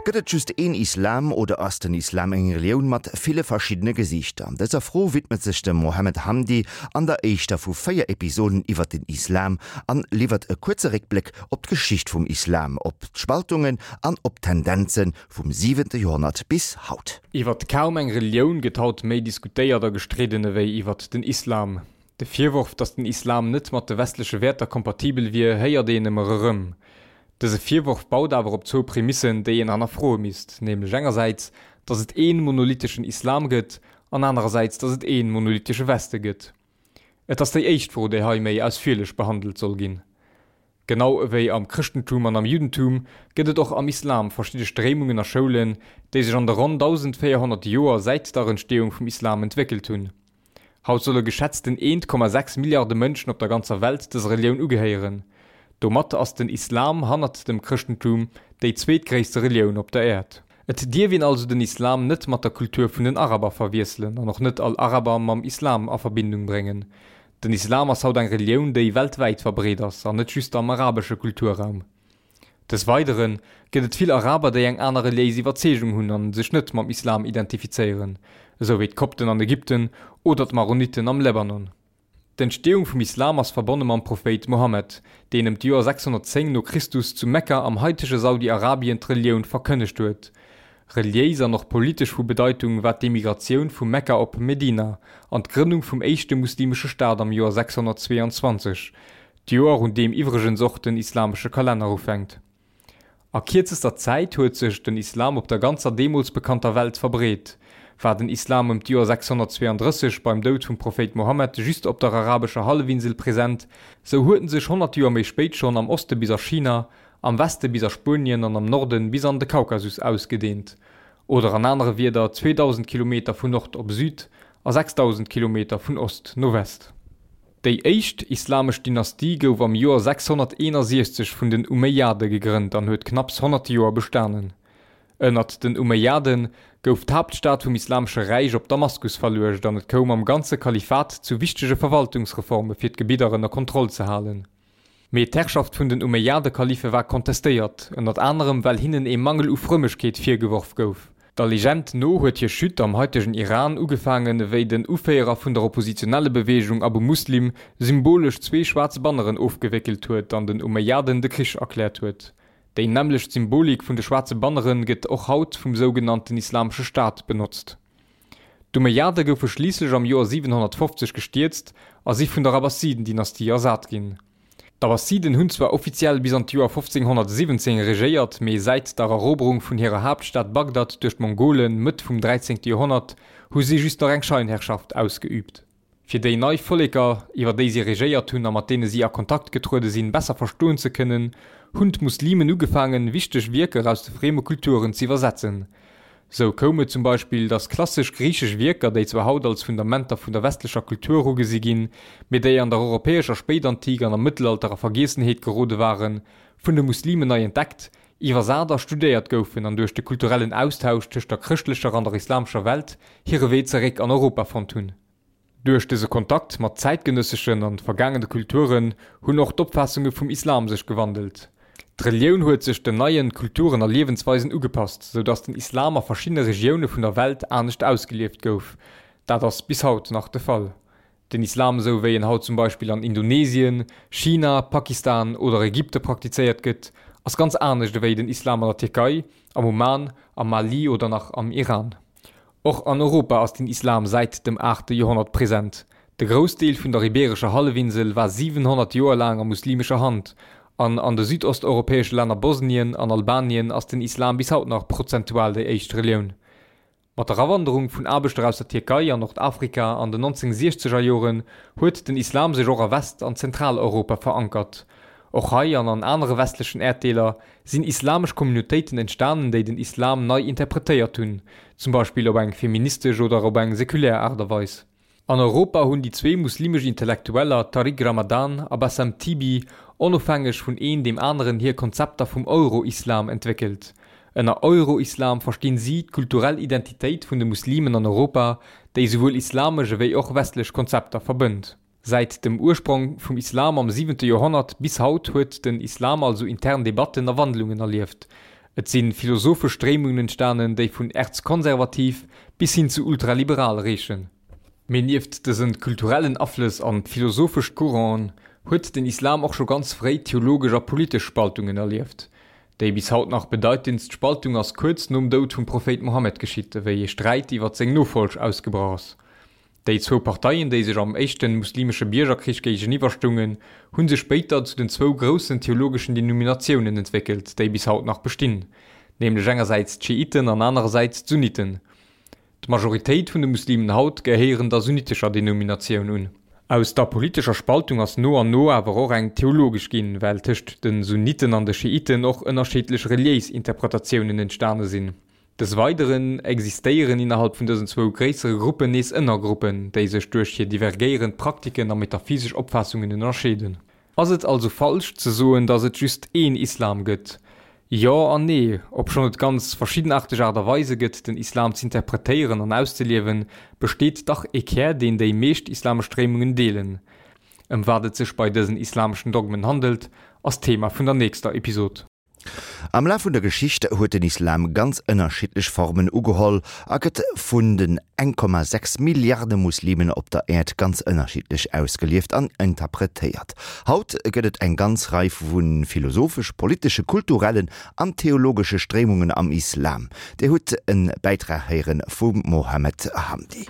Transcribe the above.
Gëtt et just een Islam oder ass den Islam eng Relioun mat ville verschiddene Gesiichter? Dëser Fro widmet sech de Mohammed Hamdi an der éischter vu 4 Episoden iwwer den Islam an liwwert e kuerze Réckbléck op d'Geschicht vum Islam, op d'Spaltungen an op d'Tendenze vum siwente Joerhonnert bis haut. Iwwert kaum eng Relioun gëtt haut méi diskutéiert a gestridden ewéi iwwert den Islam. De Virworf, datt den Islam net mat de westleche Wäerter kompatibel wier, héiert een ëmmer erëm. Dëse Virworf baut awer op zwou Prämissen, déi een hannerfroe misst, nämlech engersäits, datt et ee monolitheschen Islam gëtt, an anerersäits, datt et ee monolithesche Weste gëtt. Et ass déi éischt Fro, déi hei méi ausfierlech behandelt soll ginn. Genau ewéi am Chrëschtentum an am Juddentum gëtt et och am Islam verschidde Stréimungen a Schoulen, déi sech an de ronn 1.400 Joer säit der Entsteeung vum Islam entwéckelt hunn. Haut solle geschätzten 1,6 Milliarde Mënschen op der ganzer Welt dëser Relioun ugehéieren. Domat ass den Islam hannert dem Chrëschtentum déi zweetgréisste Relioun op der Äerd. Et dierf een also den Islam net mat der Kultur vun den Araber verwiesselen an och net all Araber mam Islam a Verbindung bréngen. Den Islam ass haut eng Relioun, déi weltwäit verbreet ass an net just am arabesche Kulturraum. Des Weidere gëtt et vill Araber, déi eng aner reliéis Iwwerzeegung hunn an sech net mam Islam identifizéieren, esou wéi d'Kopten an Ägypten oder d'Maroniten am Lebanon. D'Entsteeung vum Islam ass verbonne mam Prophéit Mohammed, deen ëm d'Joer 610 no Christus zu Mekka am haitege Saudi-Arabien d'Relioun verkënnegt huet. Reliéis an och politesch vu Bedeitung war d'Emigratioun vu Mekka op Medina an d'Grënnung vum éischte muslimesche Staat am Joer 622, D'Joer, un deem iwwregens och den islamesche Kalenner ufänkt. A kierzester Zäit huet sech den Islam op der ganzer deemools bekannter Welt verbreet. War den Islam ëm d'Joer 632 beim Doud vum Prophéit Mohammed just op der arabescher Hallefinsel present, sou huet en sech 100 Joer méi spéit schonn am Oste bis a China, am Weste bis a Spuenien an am Norde bis an de Kaukasus ausgedeent. Oder an anere Wierder 2.000 Kilometer vun Nord op Süd a 6.000 Kilometer vun Ost no West. Déi éischt islamesch Dynastie gouf am Joer 661 vun den Umeyyade gegrënnt an huet knapps 100 Joer bestanen. Ënnert den Umeyyade gouf d'Haaptstad vum Islamesche Räich op Damaskus verluecht an et koum am ganze Kalifat zu wichtege Verwaltungsreforme fir d'Gebidder ënner Kontroll ze halen. Mee d'Herrschaft vun den Umeyyade-Kalife war kontestéiert, ënnert anerem well hinnen ee Mangel u Frëmmegkeet virgeworf gouf. Der Legend no huet hir Chute am haitegen Iran ugefaangen, wéi den Uféierer vun der Oppositionellebeweegung Abu Muslim symbolesch zwee schwaarz Banneren ofgewéckelt huet an den Umayyaden de Krich erkläert huet. Déi nämmlecht Symbolik vun de schwaarze Bannere gëtt och haut vum sougenannten Islamesche Staat benotzt. D'Umayyade goufe schliisslech am Joer 750 gestierzt a si vun der Abbasiden-Dynastie ersat ginn. D'Abbasiden hunn zwar offiziell bis an d'Joer 1517 regéiert, mee säit der Eroberung vun hirer Haaptstad Bagdad duerch d'Mongolen Mëtt vum 13. Joerhonnert hu si just nach eng Scheinherrschaft ausgeüübt. Fir déi nei Volleker, iwwer déi si regéiert hunn a mat deene si a Kontakt getruede sinn, besser verstoen ze kënnen, hunn d'Muslimen ugefaangen, wichteg Wierker aus de frieme Kulturen z'iwwersetzen. Sou koum et zum Beispill, datt klassesch griichesch Wierker, déi zwar haut als Fundamenter vun der westlecher Kultur ugesi ginn, mee déi an der europäescher Spéitantik an am Mëttelalter a Vergiessenheet gerode waren, vun de Muslimen nei entdeckt, iwwersat a studéiert goufen an duerch de kulturellen Austausch tëscht der chrëschtlecher an der islamescher Welt hire Wee zeréck an Europa fonnt hunn. Duerch dëse Kontakt mat zäitgenësseschen an vergaangene Kulturen hunn och d'Opfaassunge vum Islam sech gewandelt. D'Relioun huet sech den neien Kulturen a Liewensweisen ugepasst, sou datt den Islam a verschiddene Regioune vun der Welt anescht ausgelieft gouf. Dat ass bis haut nach de Fall. Den Islam esou wéi en haut zum Beispill an Indonesien, China, Pakistan oder Ägypte praktizéiert gëtt, ass ganz anescht ewéi den Islam an der Tierkei, am Oman, am Mali oder nach am Iran. Och an Europa ass den Islam säit dem aachte Joerhonnert present. De Groussdeel vun der Ibeerescher Hallefinsel war 700 Joer laang a muslimescher Hand, an an de südosteuropäesche Länner Bosnien an Albanien ass den Islam bis haut nach prozentual déi éischt Relioun. Mat der Awanderung vun Aarbechter aus der Tierkei an Nordafrika an den 1960 er Joren huet den Islam sech och a West an Zentraleuropa verankert. Och hei an an anere westlechen Äerddeeler sinn islamesch Communautéiten entstanen, déi den Islam nei interpretéiert hunn, zum Beispill op eng feministesch oder op eng sekulär Aart a Weis. An Europa hunn déi zwee muslimesch Intellektueller Tariq Ramadan a Bassam Tibi onofhängeg vun een deem aneren hir Konzepter vum Euro-Islam entwéckelt. Ënner Euro-Islam verstinn si d'kulturell Identitéit vun de Muslimen an Europa, déi souwuel islamesch ewéi och westlech Konzepter verbënnt. Säit dem Ursprong vum Islam am siwente Joerhonnert bis haut huet den Islam also intern Debatten a Wandlungen erlieft. Et si philosophesch Stréimungen entstanen, déi vun erzkonservativ bis hin zu ultraliberal reechen. Mee nieft dëse kulturellen Aflëss an philosophesch Couranten huet den Islam och scho ganz fréi theologesch a politesch Spaltungen erlieft. Déi bis haut nach bedeitendst Spaltung ass kuerz nom Doud vum Prophéit Mohammed geschitt, ewéi ee Sträit iwwer seng Nofolg ausgebrach ass. Déi zwou Parteien, déi sech am éischten muslimesche Biergerkrich géigeniwwer stoungen, hu sech spéiter zu den zwou groussen theologeschen Denominatiounen entwéckelt, déi bis haut nach bestinn, nämlech engersäits d'Schiiten an anerersäits d'Sunniten. D'Majoritéit vun de Muslimen haut gehéieren der sunnitescher Denominatioun un. Aus der politescher Spaltung ass no an no awer och eng theologesch ginn, well tëscht de Sunniten an de Schiiten och ënnerscheedlech reliéis Interpretatiounen entstane sinn. Des Weideren existéieren innerhalb vun dësen zwou gréissere Gruppen nees Ënnergruppen, déi sech duerch hir divergéierend Praktiken a metaphysesch Opfaassungen ënnerscheeden. Ass et also falsch ze soen, datt et just een Islam gëtt? Jo an nee. Obschonn et ganz verschiddenaarteg Aart a Weise gëtt, den Islam z'interpretéieren an auszeliewen, besteet dach ee Kär, deen déi meescht islamesch Stréimungen deelen. Ëm wat et sech bei dësen islameschen Dogmen handelt, ass d'Thema vun der nächster Episod. Am Laf vun der Geschicht huet den Islam ganz ënnerschiddlech Formen ugeholl a gëtt vun den 1,6 Milliarde Muslimen op der Äerd ganz ënnerschiddlech ausgelieft an interpretéiert. Haut gëtt et eng ganz Rei vu philosophesch, politesche, kulturellen an theologesche Stréimungen am Islam. Dir hutt e Bäitrag héiere vum Mohammed Hamdi.